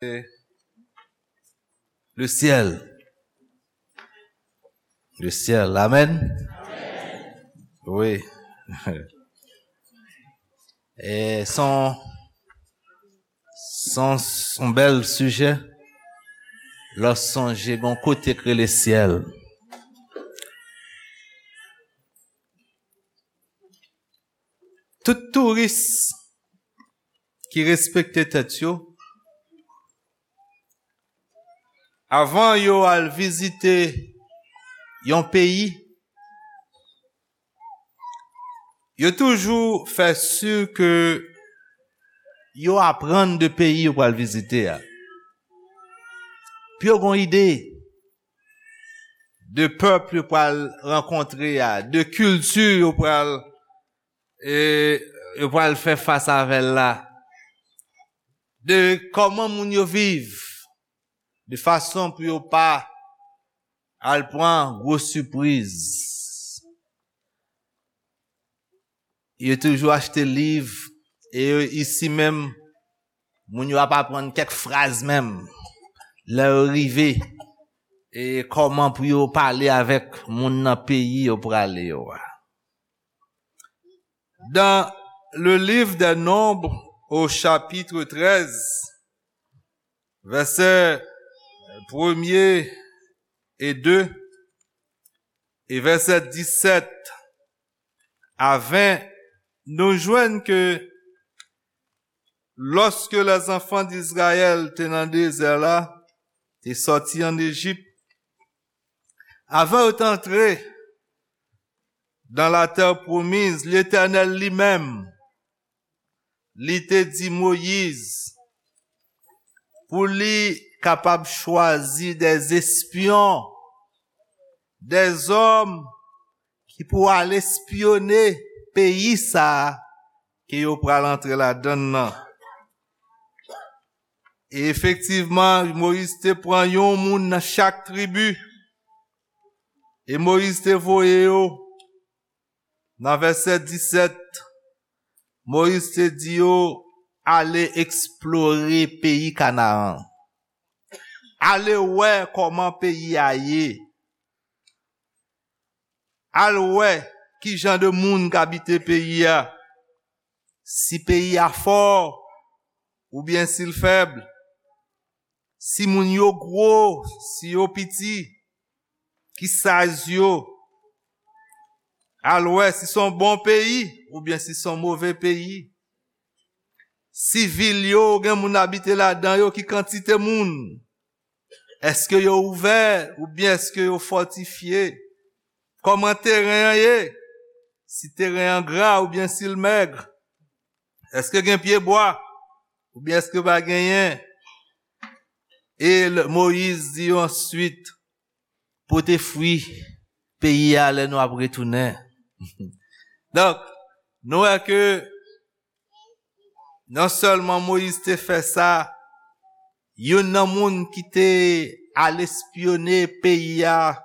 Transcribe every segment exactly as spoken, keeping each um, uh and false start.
Le ciel. Le ciel. Amen. Oui. E son, son, son bèl sijè. Lè w sonje gon kote k rele syèl. Tout touris ki respekte tèt yo, avan yo al vizite yon peyi, yo toujou fè si ke yo aprann de peyi yo pral vizite a. Pou yo gon ide de pèp yo pral rankontre a, de kilti yo pral, e, yo pral fè fas avè l la, de kòman moun yo viv, de fason pou yo pa al pran gwo sipriz. Yo toujou achte liv, e yo isi menm, moun yo ap aprann kèk fraz menm. Lè yo rive, e kòman pou yo pale avèk moun nan peyi yo prale yo a. Dans le livre des Nombres, au chapitre treize, verset premier et deux, et verset dix-sept à vingt, nou jwenn ke lòske lèzanfan d Izrayèl te nan dezè la, te sòti ann Ejip, avan yo t antre dans la terre promise, Letènèl li menm, li te di Moyiz pou li kapab chwazi des espions, des hommes ki pou al espyone peyi sa a ke yo pral antre ladann nan. E efektivman, Moyiz te pran yon moun nan chak tribi, e Moyiz te voye yo. Nan vèsè disèt, Moyiz te di yo, "Ale eksplore peyi Kanaan. Ale wè kòman peyi a ye. Al wè ki jan de moun k abite peyi a. Si peyi a fò oubyen si l fèb. Si moun yo gwo, si yo piti, ki size yo. Al wè si s on bon peyi oubyen si s on move peyi. Si vil yo gen moun abite ladan yo, ki kantite moun. Èske yo ouvè oubyen èske yo fòtifye? Kòman teren an ye? Si teren an gra oubyen si l mèg? Èske gen pyebwa oubyen èske pa genyen?" E l-, Moyiz di yo answit, "Pote fwi peyi a lè nou ap retounen." Donk, nou wè ke non sèlman Moyiz te fè sa, youn nan moun ki te al espyone peyi a,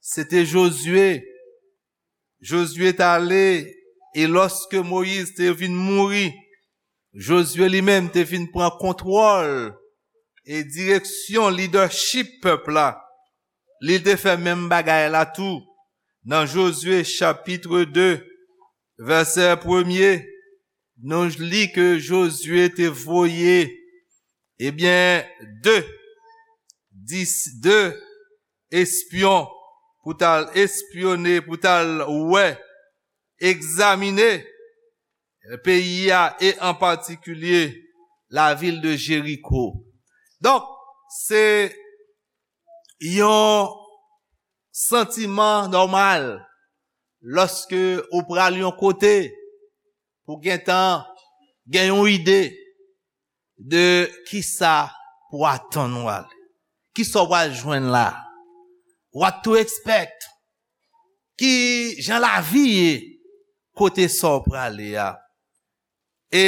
se te Jozye. Jozye t ale, e lòske Moyiz te vin mouri, Jozye li menm te vin pran kontwòl e direksyon, lidèchip pèp la. Li te fè menm bagay la tou. Nan Jozye chapit de, vèsè premye, nou li ke Jozye te voye, ebyen, de, dis, de espyon pou t al espyone, pou t al wè, egzamine peyi a, e an patikilye lavil de Jeriko. Donk, se yon santiman nòmal lòske ou pral yon kote pou gentan gen yon ide de kisa pou atann ou ale. Kisa w pral jwenn la? What to expect? Ki jan lavi ye kote sa w prale a? E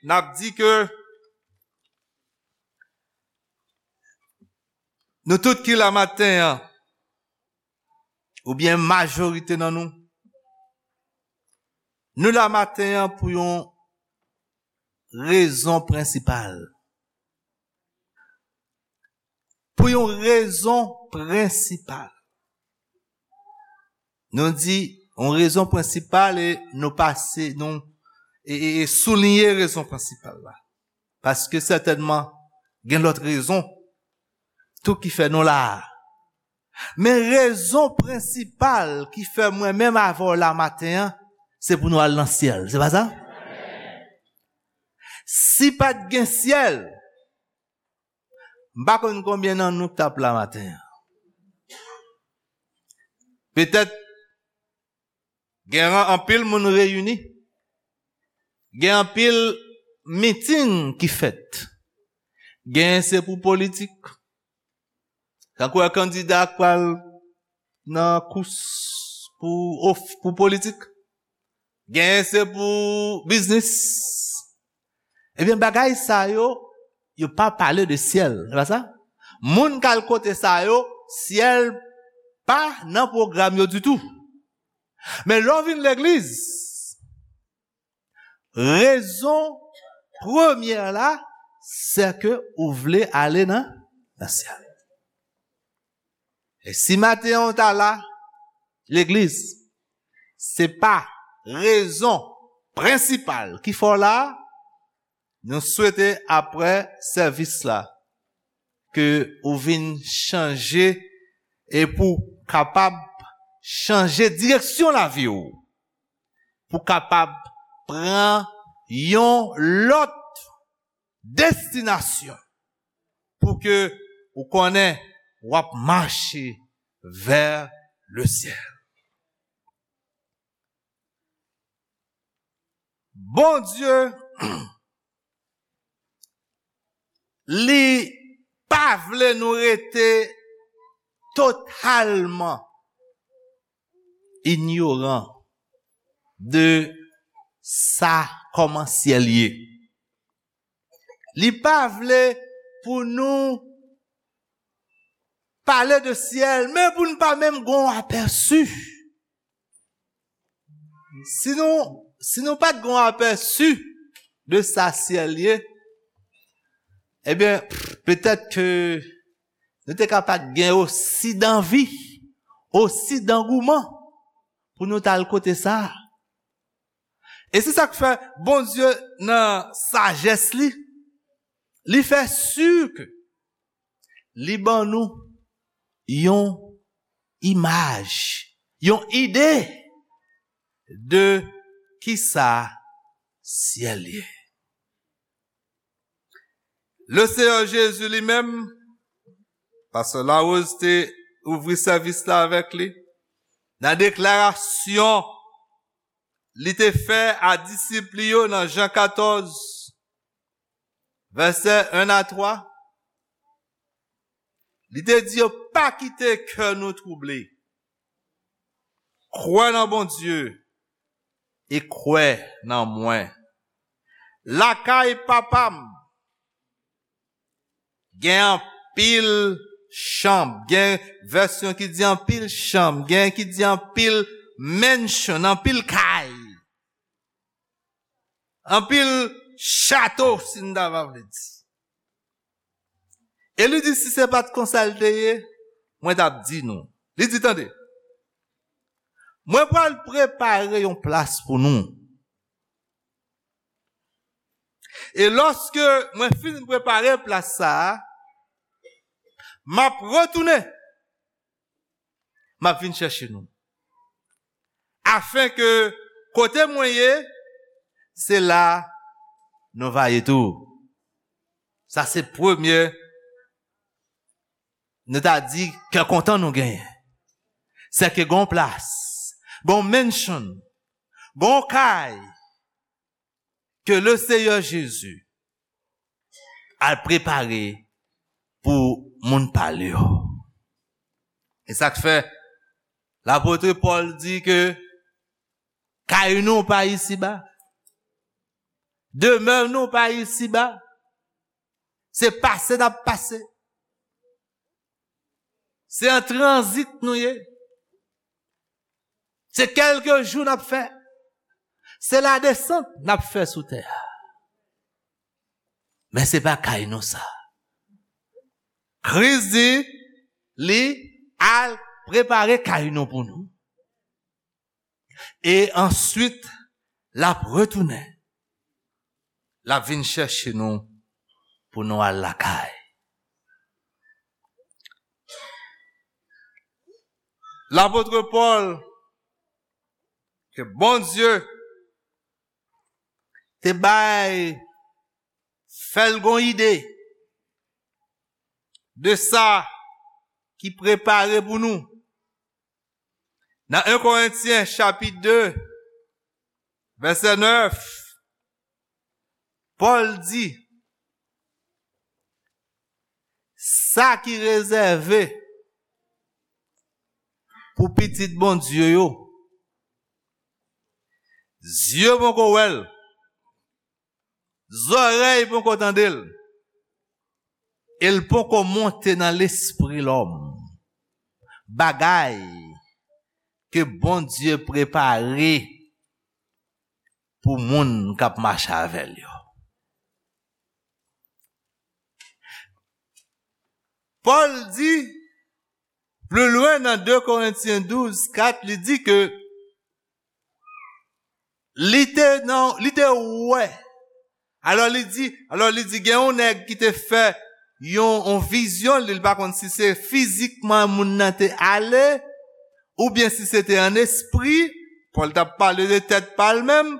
n ap di ke nou tout ki la maten an, oubyen majorite nan nou, nou la maten an pou yon rezon prensipal. Pou yon rezon prensipal. Nou di yon rezon prensipal e nou pase, nou e, e, e souliye rezon prensipal la. Paske sètènman, gen lòt rezon tou ki fè nou la a. Men rezon prensipal ki fè mwen menm avè w la maten an, se pou nou al nan syèl. Se pa sa? Si pa t gen syèl, m pa konn konbyen nan nou k t ap la maten an. Petèt, gen an-, anpil moun reyini. Gen anpil miting ki fèt. Gen se pou politik. Tankou wè kandida k pral nan kous pou of-, pou politik. Gen se pou biznis. Ebyen, bagay sa yo, yo pa pale de syèl, se pa sa? Moun k al kote sa yo, syèl pa nan pwogram yo ditou. Men lè w vin legliz, rezon premyè la, se ke ou vle ale nan, nan syèl. E si maten an w ta la, legliz, se pa rezon prensipal ki fè w la, nou swete apre sèvis la, ke ou vin chanje e pou kapab chanje direksyon lavi w, pou kapab pran yon lòt destinasyon, pou ke ou konnen w ap mache vè le syèl. Bondye, li pa vle nou rete totalman inyoran de sa kòman syèl ye. Li pa vle pou nou pale de syèl, men pou n pa menm gon apèsi. Si nou, si nou pa t gon apèsi de sa syèl ye, ebyen, petèt ke nou te ka pa t gen osi danvi, osi dangouman pou nou t al kote sa a. E se sa k fè Bondye nan sajès li, li fè si ke li ban nou yon imaj, yon ide de kisa syèl ye. Le Seyè Jezi li menm, Pastè Larose te ouvri sèvis la avèk li, nan deklarasyon li te fè a disip li yo nan Jan katòz, vèsè en a twa, li te di yo, "Pa kite kè nou twouble. Kwè nan Bondye e kwè nan mwen. Lakay Papa m gen anpil chanm." Gen vèsyon ki di anpil chanm, gen ki di anpil mansion, anpil kay, anpil chato, si n ta va vle di. E li di, "Si se pa t konsa l te ye, mwen t ap di nou." Li di, "Tande, mwen pral prepare yon plas pou nou. E lòske mwen fin prepare plas sa a, m ap retounen, m ap vin chèche nou. Afen ke kote mwen ye, se la nou va ye tou." Sa se premye, nou ta di, kè kontan nou genyen. Se ke gon plas, gon mansion, gon kay, ke le Seyè Jezi al prepare pou moun pa l yo. E sa k fè lapot Pòl di ke kay nou pa isiba, demè nou pa isiba, se pase n ap pase. Se an tranzit nou ye. Se kèlke jou n ap fè. Se ladesant n ap fè sou tè a. Men se pa kay nou sa. Kris di, li al prepare kay nou pou nou. E answit, l ap retounen. L ap vin chèche nou pou nou al lakay. Lapot Pòl, ke Bondye te bay, fè l gon ide de sa ki prepare pou nou. Nan en Korentyen chapit de, vèsè nèf, Pòl di, sa ki rezève pou pitit Bondye yo, zye poko wè l, zòrèy poko tande l, e l poko monte nan lespri lòm. Bagay ke Bondye prepare pou moun k ap mache avè l yo. Pòl di, pli lwen nan de Korentyen douz kat, li di ke li te nan, li te wè. Alò li di, alò li di, gen yon nèg ki te fè yon, yon vizyon, li, li pa konn si se fizikman moun nan te ale, oubyen si se te an espri, Pòl t ap pale de tèt pa l menm.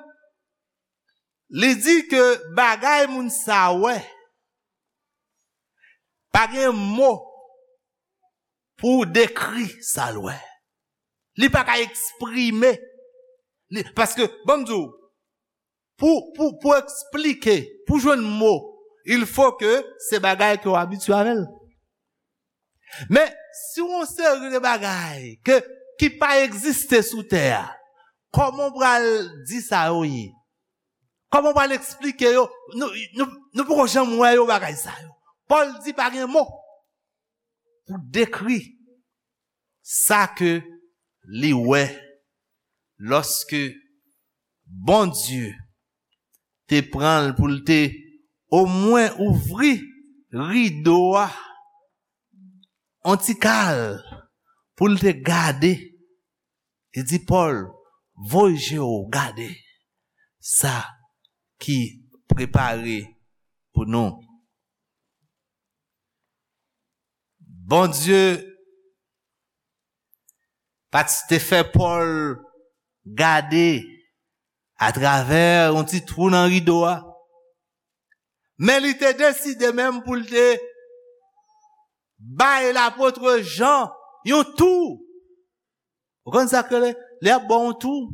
Li di ke bagay moun sa wè, pa gen mo pou dekri sa l wè. Li pa ka eksprime. Li, paske, ban m di w, pou, pou, pou eksplike, pou jwenn mo, il faut que se bagay ke w abitye avè l. Men, si w yon seri de bagay ke, ki pa egziste sou tè a, kòman w pral di sa yo ye? Kòman w pral eksplike yo? Nou, nou, nou poko janm wè yo, bagay sa yo. Pòl di pa gen mo pou dekri sa ke li wè lòske Bondye te pran l pou l te omwen ouvri rido a on ti kal pou l te gade. Li di Pòl, voye je w gade sa ki prepare pou nou. Bondye pa t te fè Pòl gade atravè yon ti twou nan rido a. Men li te deside menm pou l te bay lapot Jan yon tou. Ou konn sa k rele? Lè y ap ba w yon tou,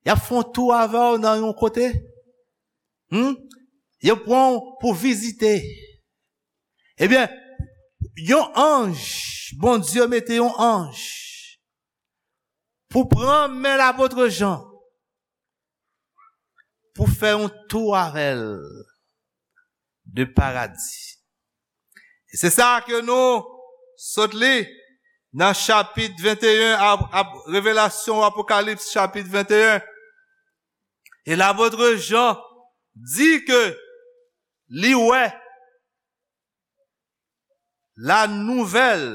y ap fè yon tou avè w nan yon kote. Hmm? Yo pran w pou vizite. Ebyen, yon anj, Bondye mete yon anj pou pran men lapot Jan, pou fè yon tou avè l de paradi. E se sa ke nou sot li nan chapit venteyen, ap, ap, Revelasyon, Apokalips, chapit venteyen. E lapot Jan di ke li wè la nouvèl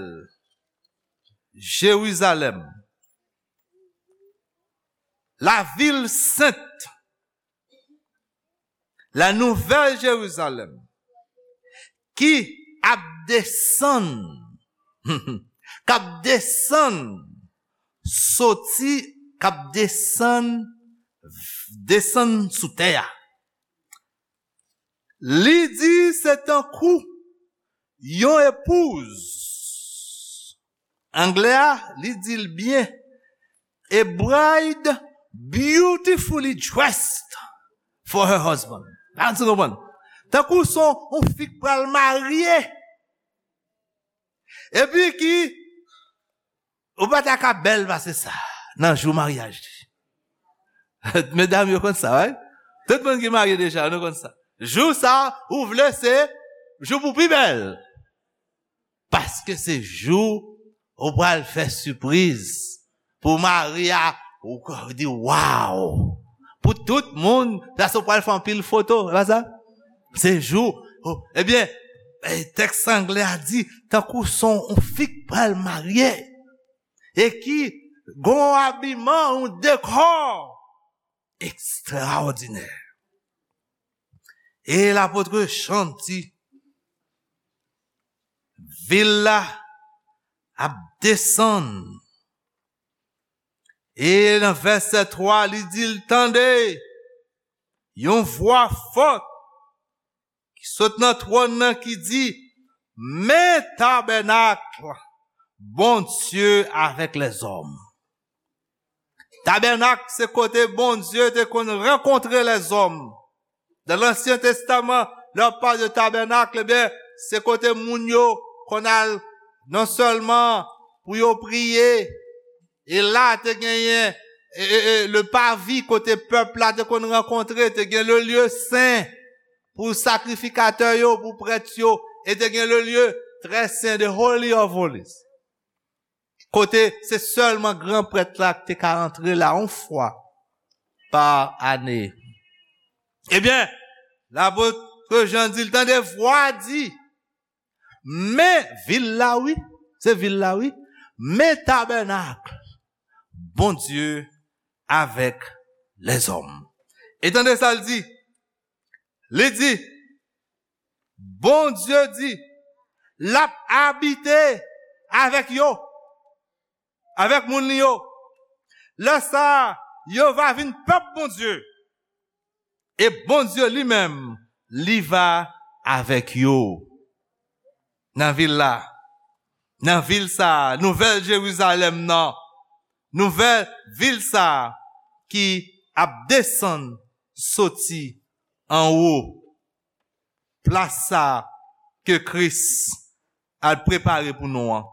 Jerizalèm, la vil sent, la nouvèl Jerizalèm, ki ap desann, k ap desann, soti, k ap desann, desann sou tè a. Li di se tankou yon epouz. Anglè a, li di l byen. A bride beautifully dressed for her husband. Èske w konprann? Tankou se yon fi k pral marye. Epi ki, ou pa ta ka bèl pase sa nan jou maryaj li. Medam yo konn sa, wi. Tout moun ki marye deja, nou konn sa. Jou sa, ou vle se jou pou pi bèl. Paske se jou ou pral fè sipriz pou mari a, ou k-, di, "Waw!" Pou tout moun, paske ou pral fè anpil foto, e pa sa? Se jou, oh, ebyen, e, tèks anglè a di, tankou se yon fi k pral marye, e ki gen yon abiman, yon dekò ekstraòdinè. E lapot Jan di, vil la ap desann. E nan vèsè twa, li di l, tande yon vwa fò ki sot nan twòn nan ki di, men tabènak Bondye avèk lèzòm. Tabènak se kote Bondye te konn rankontre lèzòm. Nan Ansyen Testaman, lè w ap pale de tabènak, ebyen, se kote moun yo konn al non sèlman pou yo priye, e la te genyen e, e, e, le pavi kote pèp la te konn rankontre, te gen le lye sen pou sakrifikatè yo, pou prèt yo, e te gen le lye trè sen, the Holy of Holies. Kote se sèlman gran prèt la ki te ka antre la yon fwa pa ane. Ebyen, lapot Jan di l, tande vwa di, men vil la, wi, se vil la, wi, men tabènak Bondye avèk lèzòm. E tande sa l di, li di, Bondye di, l ap abite avèk yo, avèk moun li yo. Lè sa a, yo va vin pèp Bondye. E Bondye li menm, li va avèk yo. Nan vil la, nan vil sa a, nouvèl Jerizalèm nan, nouvèl vil sa a ki ap desann soti anwo, plas sa a ke Kris al prepare pou nou an.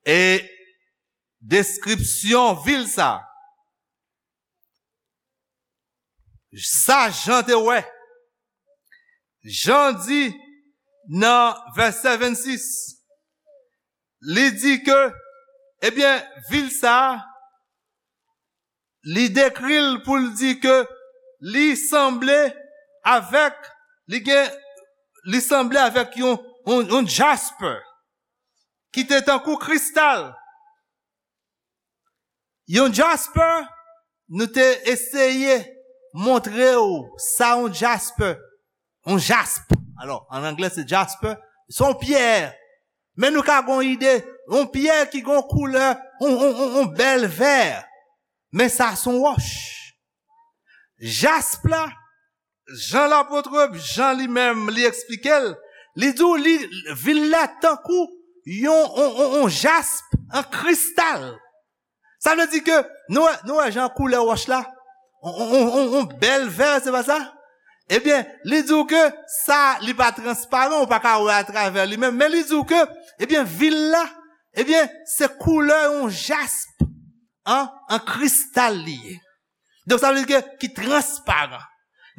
E deskripsyon vil sa a, sa Jan te wè. Jan di nan vèsè vennsis, li di ke, ebyen, vil sa a, li dekri l pou l di ke li sanble avèk, li gen, li sanble avèk yon, yon, yon jasper ki te tankou kristal. Yon jasper, nou te eseye montre w sa yon jasper, yon jasp. Alò, an anglè se jasper, se yon pyè. Men nou ka gon ide, yon pyè ki gon koulè, yon, yon, yon, yon bèl vè. Men sa se yon wòch. Jasp la, Jan lapot Jan li menm, li eksplike l, li di w li, vil la tankou yon, yon, yon, yon jasp an kristal. Sa vle di ke nou wè, nou wè jan koulè wòch la, yon, yon, yon, yon, yon bèl vè, se pa sa? Ebyen, li di w ke sa, li pa transparan, ou pa ka wè atravè li menm, men li di w ke, ebyen, vil la, ebyen, se koulè yon jasp an, an kristal li ye. Donk, sa vle di ke ki transparan.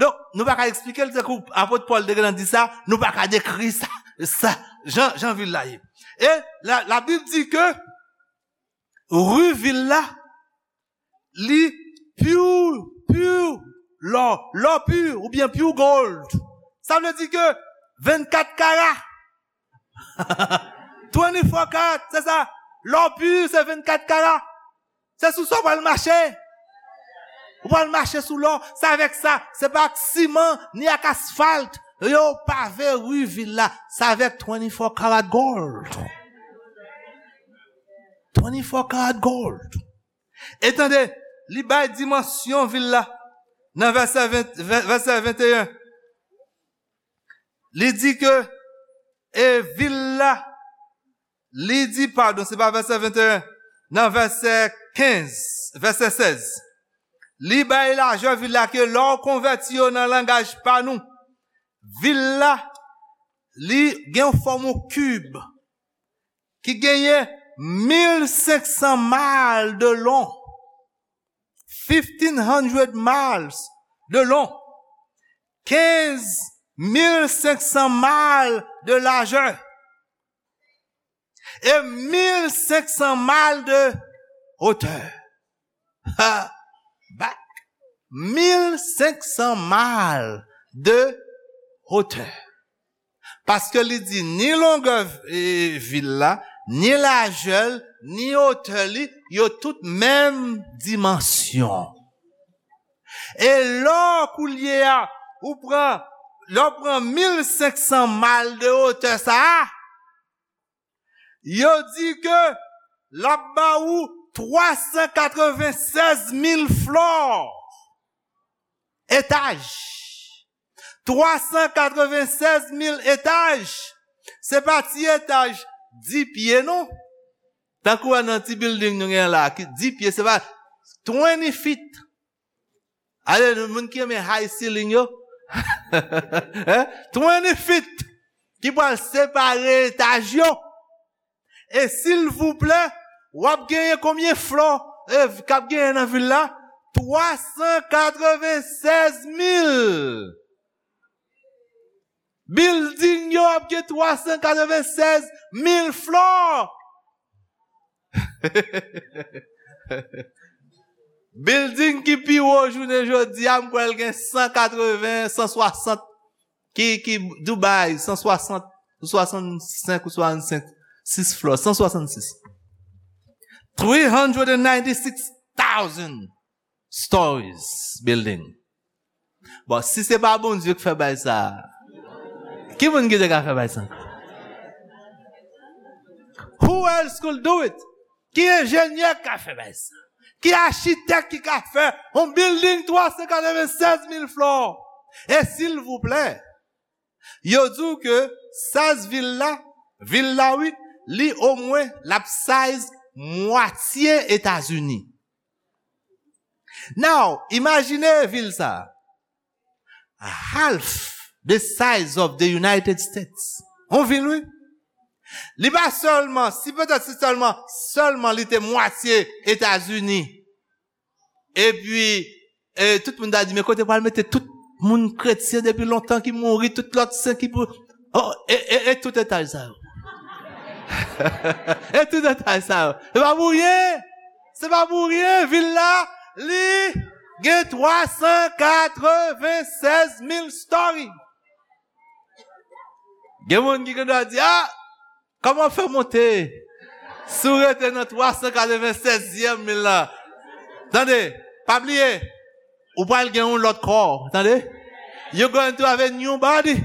Donk, nou pa ka eksplike l, tankou apot Pòl te gentan di sa, nou pa ka dekri sa, sa, jan, jan vil la ye. E la, Labib di ke ri vil la, li pure, pure, lò, lò pur, oubyen pure gold. Sa vle di ke vennkat kara, twenty-four karat, se sa. Lò pur, se vennkat kara. Se sou sa w pral mache. Ou pral mache sou lò. Se avèk sa. Se pa ak siman, ni ak asfalt. Yo pave ri vil la. Se avèk twenty-four karat gold. Twenty-four karat gold. E tande, li bay dimansyon vil la. Nan vèsè ven, vè, vèsè venteyen. Li di ke, e vil la, li di, padon, se pa vèsè venteyen, nan vèsè kenz, vèsè sèz. Li bay lajè vil la ke lè w konvèti yo nan langaj pa nou, vil la, li gen yon fòm yon kib ki genyen mil senk san mal de long. Fifteen hundred miles de long. Kenz mil senk san mal de lajè. E mil senk san mal de hauteur. Ha, back. Mil senk san mal de hauteur. Paske li di ni longè, e, vil la, ni lajè l, ni otè li, yo tout menm dimansyon. E lò koulye a, ou pran, lè w pran mil senk san mal de otè sa a, yo di ke l ap ba ou twa san katreven sèz mil flò etaj. Twa san katreven sèz mil etaj. Se pa ti etaj dis pye, non. Tankou wè nan ti building nou gen la, ki dis pye, se pa twenty feet. Ale, moun ki renmen high ceiling yo. Hein? Twenty feet. Ki pral separe etaj yo. E silvouplè, w ap genyen konbyen flò, e, k ap genyen nan vil la? Twa san katreven sèz mil. Building yo ap gen twa san katreven sèz mil flò. Building ki pi wo jounen jodi a, m kwè l gen san katreven, san swasant. Ki, ki Dubai, san swasant, ou swasannsenk, ou swasannsenk, sis flò, san swasannsis. Three hundred and ninety-six thousand stories building. Bon, si se pa Bondye ki fè bay sa, ki moun ki te ka fè bay sa? Who else could do it? Ki enjenyè ki ka fè bay sa? Ki achitèk ki ka fè yon building twa san katreven sèz mil flò? E silvouplè, yo di w ke size vil la, vil la wi, li omwen l ap size mwatye Etazini. Now, imajine vil sa a. Half the size of the United States. Yon vil, wi. Li pa sèlman, si petèt si sèlman, sèlman li te mwatye Etazini. Epi, e, tout moun ta di, men kote pral mete tout moun kretyen depi lontan ki mouri, tout lòt sen ki pou, oh, e, e, e tout etaj sa yo. E tout etaj sa yo. Se pa pou ryen. Se pa pou ryen. Vil la, li gen twa san katreven sèz mil story. Gen moun ki gen dwa di, ah, kòman w fè monte? Si w rete nan twa san katreven sèz mil la. Tande, pa bliye, ou pral gen yon lòt kò, tande? You're going to have a new body.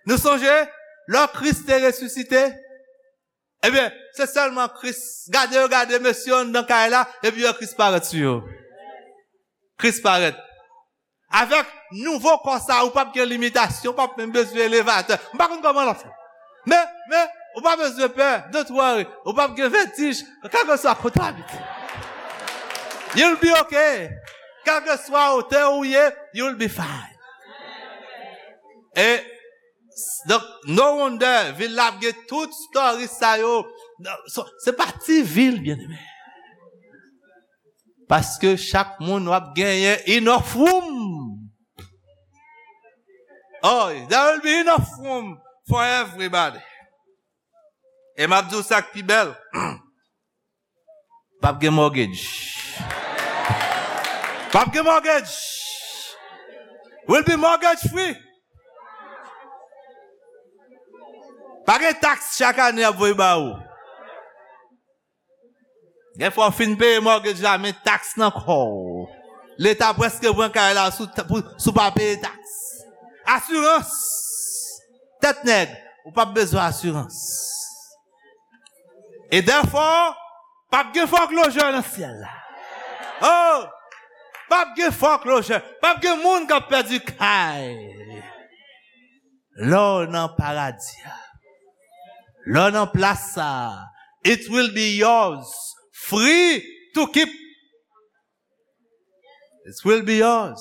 Nou sonje, lè Kris te resisite, ebyen, se sèlman Kris. Gade yo, gade mesye yo anndan kay la, epi yo Kris parèt sou yo. Kris parèt. Avèk nouvo kò sa, ou p ap gen limitasyon, ou p ap menm bezwen elevatè. M pa konn kòman l ap fè. Men, men, ou pa bezwen pè, don't worry. Ou p ap gen vètij, kèlkeswa kote w abite. You'll be okay. Kèlkeswa otè ou ye, you'll be fine. E, donk, no wonder, vil la ap gen tout story sa yo. Non, so, se pa ti vil, byeneme. Paske chak moun w ap genyen enough room. Oh, there will be enough room for everybody. E m ap di w sa k pi bèl. P ap gen mortgage. P ap gen mortgage. Will be mortgage free. Pa gen taks chak ane y ap voye ba ou. Gen fwa w fin peye mortgage la, men taks nan kò w. Leta prèske pran kay la sou, pou, sou pa peye taks. Asirans. Tèt nèg, ou p ap bezwen asirans. E dèfò, p ap gen foreclosure nan syèl la. Oh! P ap gen foreclosure. P ap gen moun k ap pèdi kay. Lè w nan paradi a, lè w nan plas sa a, it will be yours, free to keep. It will be yours,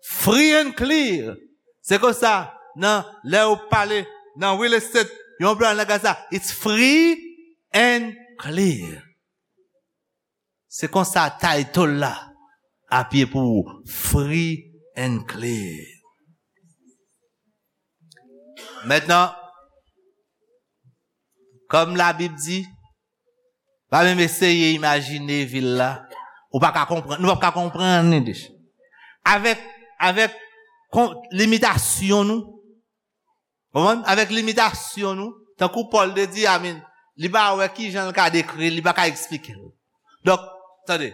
free and clear. Se konsa, nan, lè yo pale nan real estate, yon plan nan sa, it's free and clear. Se konsa title la ap ye pou ou, free and clear. Mentnan, kòm Labib di, pa menm eseye imajine vil la, ou pa ka konprann, nou p ap ka konprann li deja. Avèk, avèk kon-, limitasyon nou, Konprann? Avèk limitasyon nou, tankou Pòl te di, amen, li pa wè ki jan l ka dekri l, li pa ka eksplike l. Donk, tande,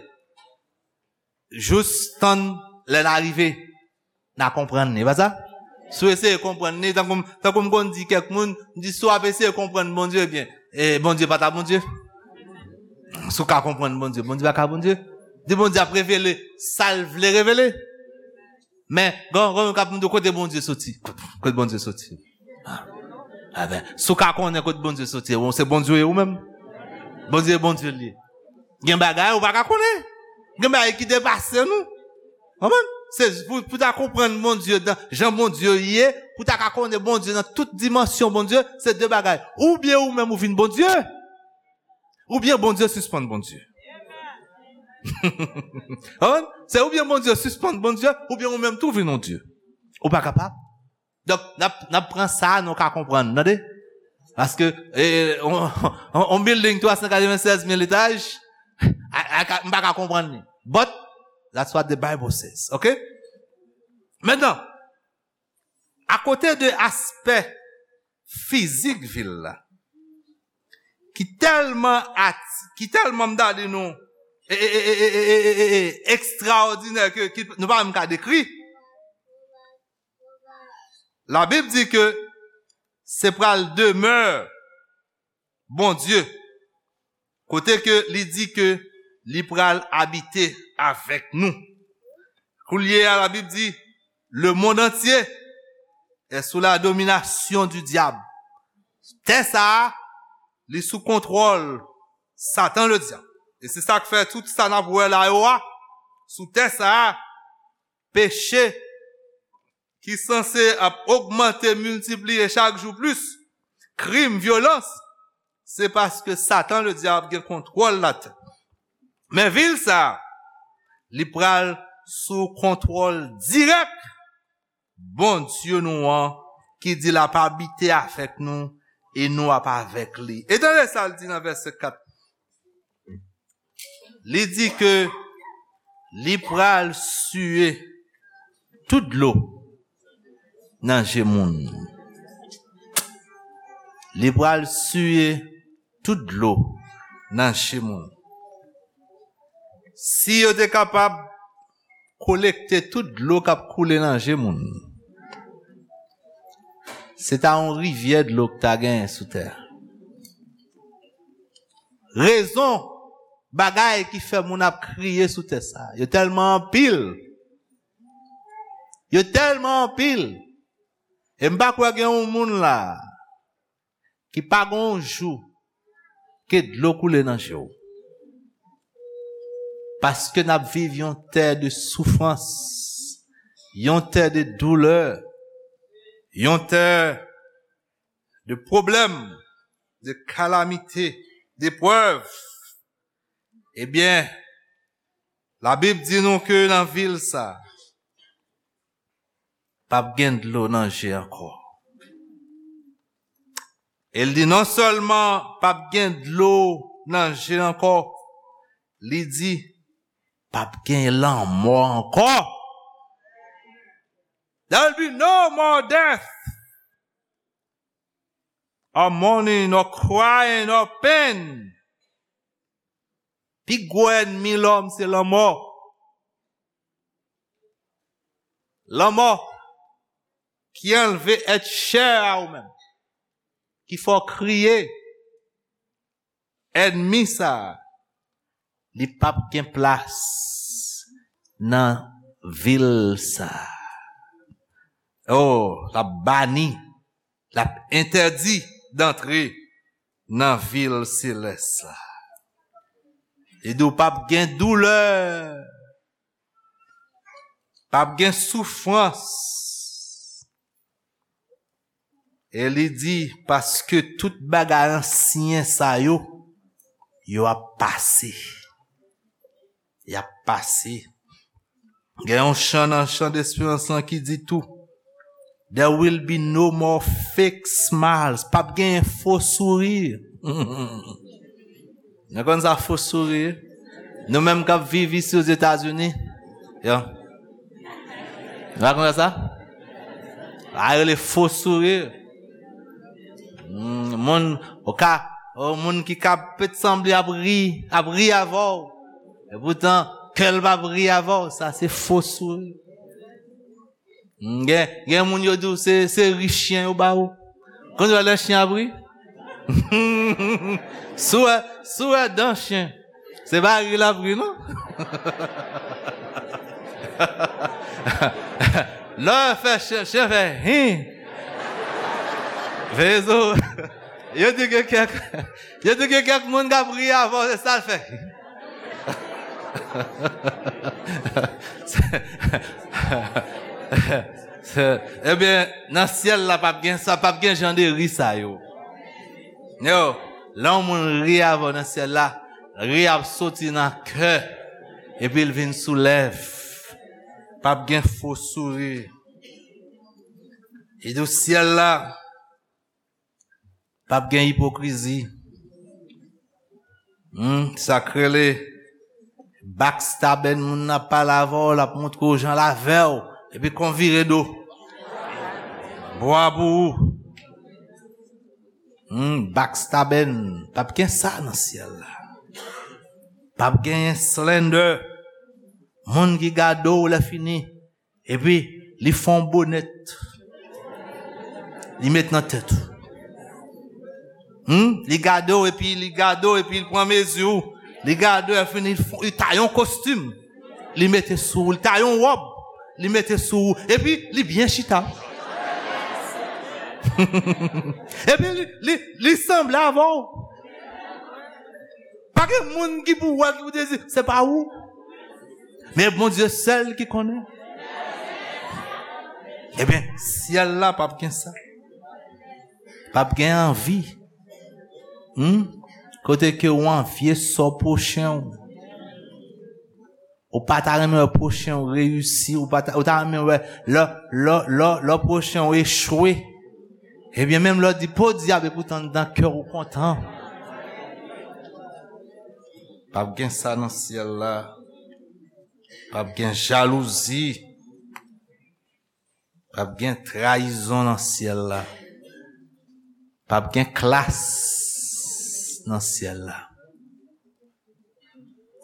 jous tann lè n a rive, n a konprann li, pa sa? Si w eseye konprann li, tankou, tankou m konn di kèk moun, m di, si w ap eseye konprann Bondye, ebyen, e, Bondye pa ta Bondye. Si w ka konprann Bondye, Bondye pa ka Bondye. Di Bondye ap revele sa l vle revele. Men, gen, gen moun k ap mande kote Bondye soti. Kote Bondye soti? A, a ben, si w ka konnen kote Bondye soti, ou se Bondye ou menm. Bondye, Bondye li ye. Gen bagay ou pa ka konnen. Gen bagay ki depase nou. Konprann? Se pou, pou ta konprann Bondye nan jan Bondye ye, pou ta ka konnen Bondye nan tout dimansyon Bondye, se de bagay. Oubyen ou menm ou vin Bondye, oubyen Bondye sispann Bondye. Konprann? Se oubyen Bondye sispann Bondye, oubyen ou menm tou vin yon Dye. Ou pa kapab. Donk, n ap, n ap pran sa, nou ka konprann, tande? Paske, e, on, on, on building twa san katrevennsèz mil etaj, a, a, ka- m pa ka konprann li. But, that's what the Bible says, ok? Mentnan, akote de aspè fizik vil la, ki tèlman at, ki tèlman m ta di nou, e, e, e, ekstraòdinè ke, ke nou pa menm ka dekri. Labib di ke se pral demè Bondye, kote ke li di ke li pral abite avèk nou. Koulye a, Labib di, le monde entier est sous la domination du diable. Tè sa a, li sou kontwòl Satan le dyab. E se sa k fè tout sa n ap wè la yo a, sou tè sa a, peche ki sanse ap ogmante, miltipliye chak jou plis, krim, vyolans, se paske Satan le dyab gen kontwòl latè. Men vil sa a, li pral sou kontwòl dirèk Bondye nou an, ki di l ap abite avèk nou e nou ap avèk li. E tande sa l di nan vèsè kat. Li di ke li pral siye tout dlo nan je moun. Li pral siye tout dlo nan je moun. Si yo te kapab kolekte tout dlo k ap koule nan je moun, se ta yon rivyè dlo k ta genyen sou tè a. Rezon bagay ki fè moun ap kriye sou tè sa a, yo tèlman anpil. Yo tèlman anpil. E m pa kwè gen yon moun la ki pa gen yon jou ke dlo koule nan je w. Paske n ap viv yon tè de soufrans, yon tè de doulè, yon tè de pwoblèm, de kalamite, deprèv. Ebyen, Labib di nou ke nan vil sa, p ap gen dlo nan je ankò. E l di non sèlman p ap gen dlo nan je ankò, li di p ap gen lanmò ankò. There will be no more death, or mourning, or crying, or pain. Pi gwo ènmi lòm se lanmò. Lanmò ki anlve èt chè a ou menm, ki fè w kriye. Ènmi sa a, li p ap gen plas nan vil sa a. Oh, l ap bani, l ap entèdi dantre nan vil selès la. Li di w p ap gen doulè, p ap gen soufrans. E li di, paske tout bagay ansyen sa yo, yo ap pase. Y ap pase. Gen yon chan nan chan desperans lan ki di tou, there will be no more fake smiles. P ap gen fo souri. Nou konn sa fo souri? Nou menm k ap viv isi Ozetazini. Yo. Nou pa konn sa? A rele fo souri. Hmm, moun, ou ka, ou moun ki ka pèt sanble ap ri, ap ri avè w. E poutan, kè l p ap ri avè w, sa se fo souri. Hmm, gen, gen moun yo di w se, se ri chen yo ba ou. Konn wè lè chen ap ri? Si w wè, si w wè dan chen, se pa ri l ap ri, non. Lè w fè chen, chen fè hin. Veye zo. Yo di gen kèk, yo di gen kèk moun k ap ri avè w, se sa l fè. Ebyen, nan syèl la, p ap gen sa, p ap gen jan de ri sa yo. Yo, lè yon moun ri avè w nan syèl la, ri a ap soti nan kè, epi l vin sou lèv. P ap gen fo souri. Li di w syèl la, p ap gen ipokrizi. Hmm, sa k rele backstabbing, moun nan ap pale avè w, l ap montre w jan l avè w, epi kon vire do. Bwa pou ou. Hmm, backstabbing, p ap gen sa nan syèl la. P ap genyen slander. Moun ki gade w lè fini, epi li fè yon bonèt. Li met nan tèt ou. Hmm? Li gade w, epi li gade w, epi li pran mezi w. Li gade w, epi li fè, li taye yon kostim. Li mete sou ou. Li taye yon wòb. Li mete sou ou. Epi li byen chita. Epi li, li, li sanble avè w. Pa gen moun ki pou wè, ki pou te di, se pa ou. Men Bondye sèl ki konnen. Ebyen, syèl la p ap gen sa. P ap gen anvi. Hmm? Kote ke w anvye sò pwochen w. Ou pa ta renmen wè pwochen w reyisi, ou pa ta, ou ta renmen wè lè, lè, lè, lè pwochen w echwe. Ebyen, menm lè w di, "Po dyab," epoutan anndan kè w ou kontan. P ap gen sa nan syèl la. P ap gen jalouzi. P ap gen trayizon nan syèl la. P ap gen klas nan syèl la.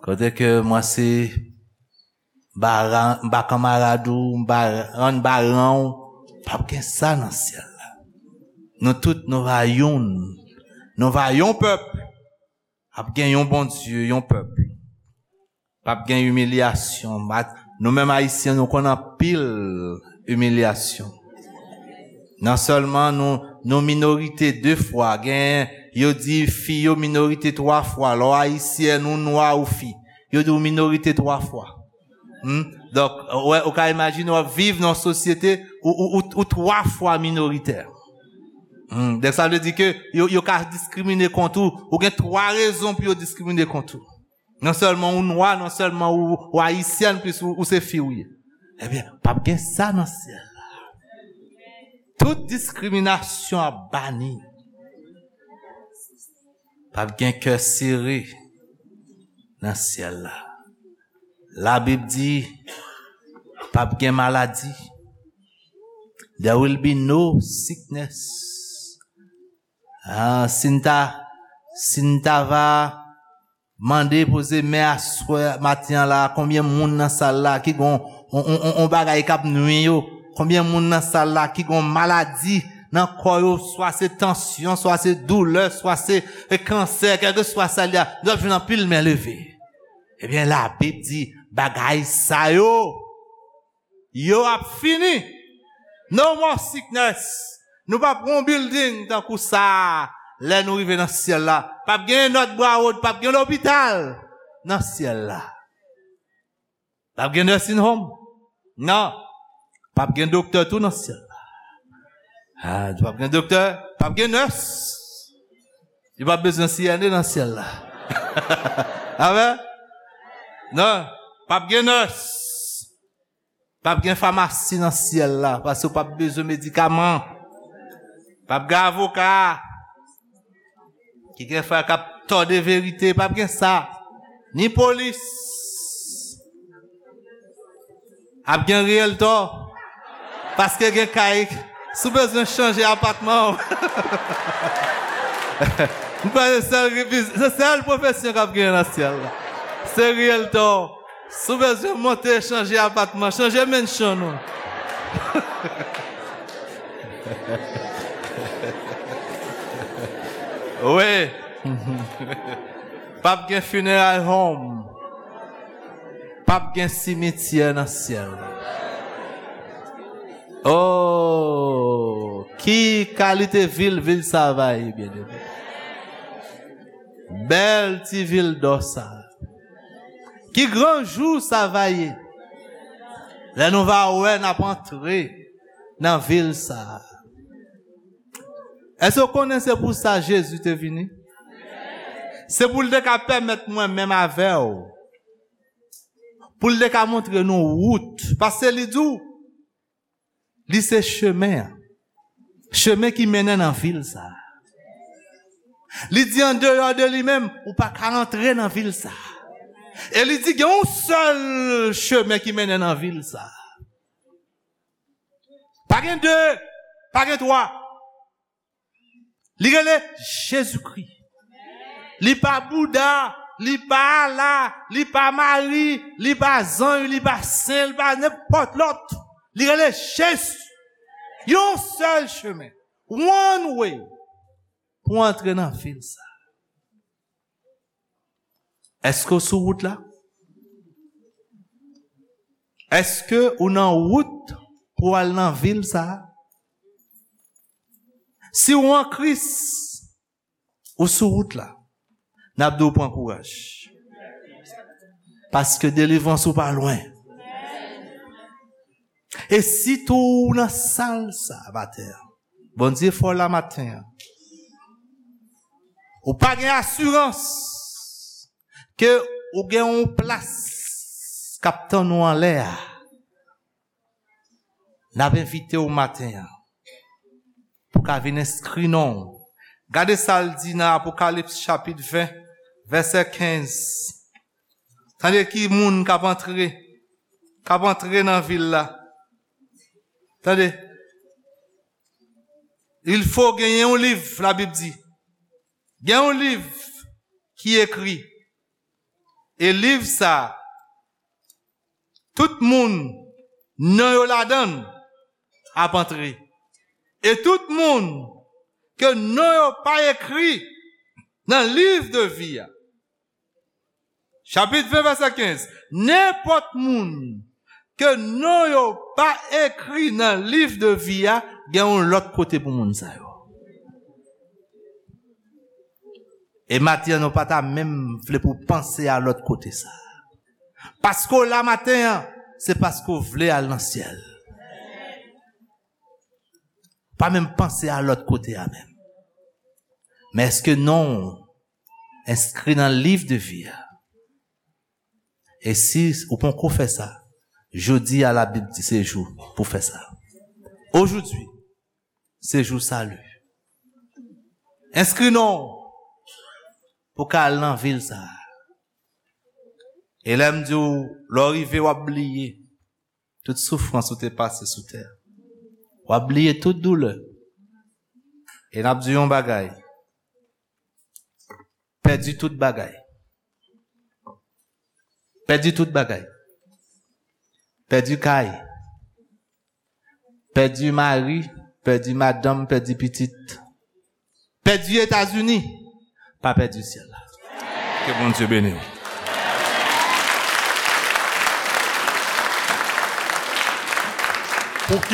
Kote ke mwen se ba, ba kanmarad ou, ba, rann ba ran w, p ap gen sa nan syèl la. Nou tout, nou va youn. Nou va yon pèp. Ap gen yon Bondye, yon pèp. P ap gen imilyasyon. Ma-, nou menm Ayisyen, nou konn anpil imilyasyon. Non sèlman nou, nou minorite de fwa, gen, yo di fi yo minorite twa fwa. Lè w Ayisyèn, ou nwa, ou fi, yo di w minorite twa fwa. Hmm? Donk, ou, ou ka imajine w ap viv nan yon sosyete ou, ou, ou, ou twa fwa minoritè. Hmm. Donk, sa vle di ke yo, yo ka diskrimine kont ou. Ou gen twa rezon pou yo diskrimine kont ou. Non sèlman ou nwa, non sèlman ou, ou ayisyèn, plis ou, ou se fi ou ye. Ebyen, p ap gen sa nan syèl la. Tout diskriminasyon ap bani. P ap gen kè sere nan syèl la. Labib di, p ap gen maladi. There will be no sickness. Ah, si n ta, si n ta va mande, poze men aswè, maten an la, konbyen moun nan sal la ki gon on, on, on, on bagay k ap nwi yo? Konbyen moun nan sal la ki gon maladi nan kò yo, swa se tansyon, swa se doulè, swa se, e, kansè, kèlkeswa sa l ye a, nou ap jwenn anpil men leve. Ebyen, Labib di, bagay sa yo, yo ap fini. No more sickness. Nou p ap gen yon building tankou sa a lè nou rive nan syèl la. P ap gen North Broward, p ap gen lopital nan syèl la. P ap gen nursing home. Non. P ap gen doktè tou nan syèl la. Ah, p ap gen doktè, p ap gen nurse. Yo p ap bezwen C N A nan syèl la. Amen? Non, p ap gen nurse. P ap gen famasi nan syèl la, paske w p ap bezwen medikaman. P ap gen avoka ki gen frè k ap tòde verite, p ap gen sa. Ni polis. Ap gen riyèltò, paske gen kay, Si w bezwen chanje apatman w, m kwè se sèl, se sèl pwofesyon k ap genyen nan syèl la. Se riyèltò. Si w bezwen monte, chanje apatman, chanje mansion ou. Wi. P ap gen funeral home. P ap gen simityè nan syèl la. Oh, ki kalite vil vil sa va ye, byeneme. Bèl ti vil dò sa. Ki gran jou sa va ye. Lè nou va wè n ap antre nan vil sa. Èske w konnen se pou sa Jezi te vini? Se pou l te ka pèmèt mwen menm avè w. Pou l te ka montre nou wout. Paske li di w, li se chemen an. Chemen ki mennen nan vil sa. Li di andeyò de li menm, ou pa ka antre nan vil sa. E li di gen yon sèl chemen ki mennen nan vil sa. Pa gen de, pa gen twa. Li rele Jezikri. Li pa Bouda, li pa Ala, li pa Mari, li pa zanj, li pa sen, li pa nenpòt lòt. Li rele Jezi. Yon sèl chemen. One way. Pou antre nan vil sa. Èske w sou wout la? Èske ou nan wout pou al nan vil sa a? Si w an Kris, ou sou wout la, n ap di w pran kouraj. Paske delivrans ou pa lwen. E sitou ou nan sal sa maten an, Bondye fè w la maten an. Ou pa gen asirans ke ou gen yon plas k ap tann ou anlè a. N ap envite w maten an pou ka vin enskri non w. Gade sa l di nan Apokalips chapit ven, vèsè kenz. Tande ki moun k ap antre, k ap antre nan vil la. Tande. Il fo genyen yon liv, Labib di. Gen yon liv ki ekri. E liv sa, tout moun non yo ladan l ap antre. E tout moun ke non yo pa ekri nan liv de vi a. Chapit ven, vèsè kenz. Nenpòt moun ke non yo pa ekri nan liv de vi a, gen yon lòt kote pou moun sa yo. E maten an, nou pa ta menm vle pou panse a lòt kote sa. Paske w la maten an, se paske w vle al nan syèl. Pa menm panse a lòt kote a menm. Men èske non w enskri nan liv de vi a? E si ou poko fè sa, jodi a Labib di se jou pou fè sa. Ojodi, se jou sali. Enskri non w pou ka al nan vil sa a. E lè m di w, lè w rive, w ap bliye tout soufrans ou te pase sou tè a. W ap bliye tout doulè. E n ap di yon bagay. Pèdi tout bagay. Pèdi tout bagay. Pèdi kay. Pèdi mari, pèdi madanm, pèdi pitit. Pèdi Etazini. Pa pèdi syèl la. Ke Bondye beni w.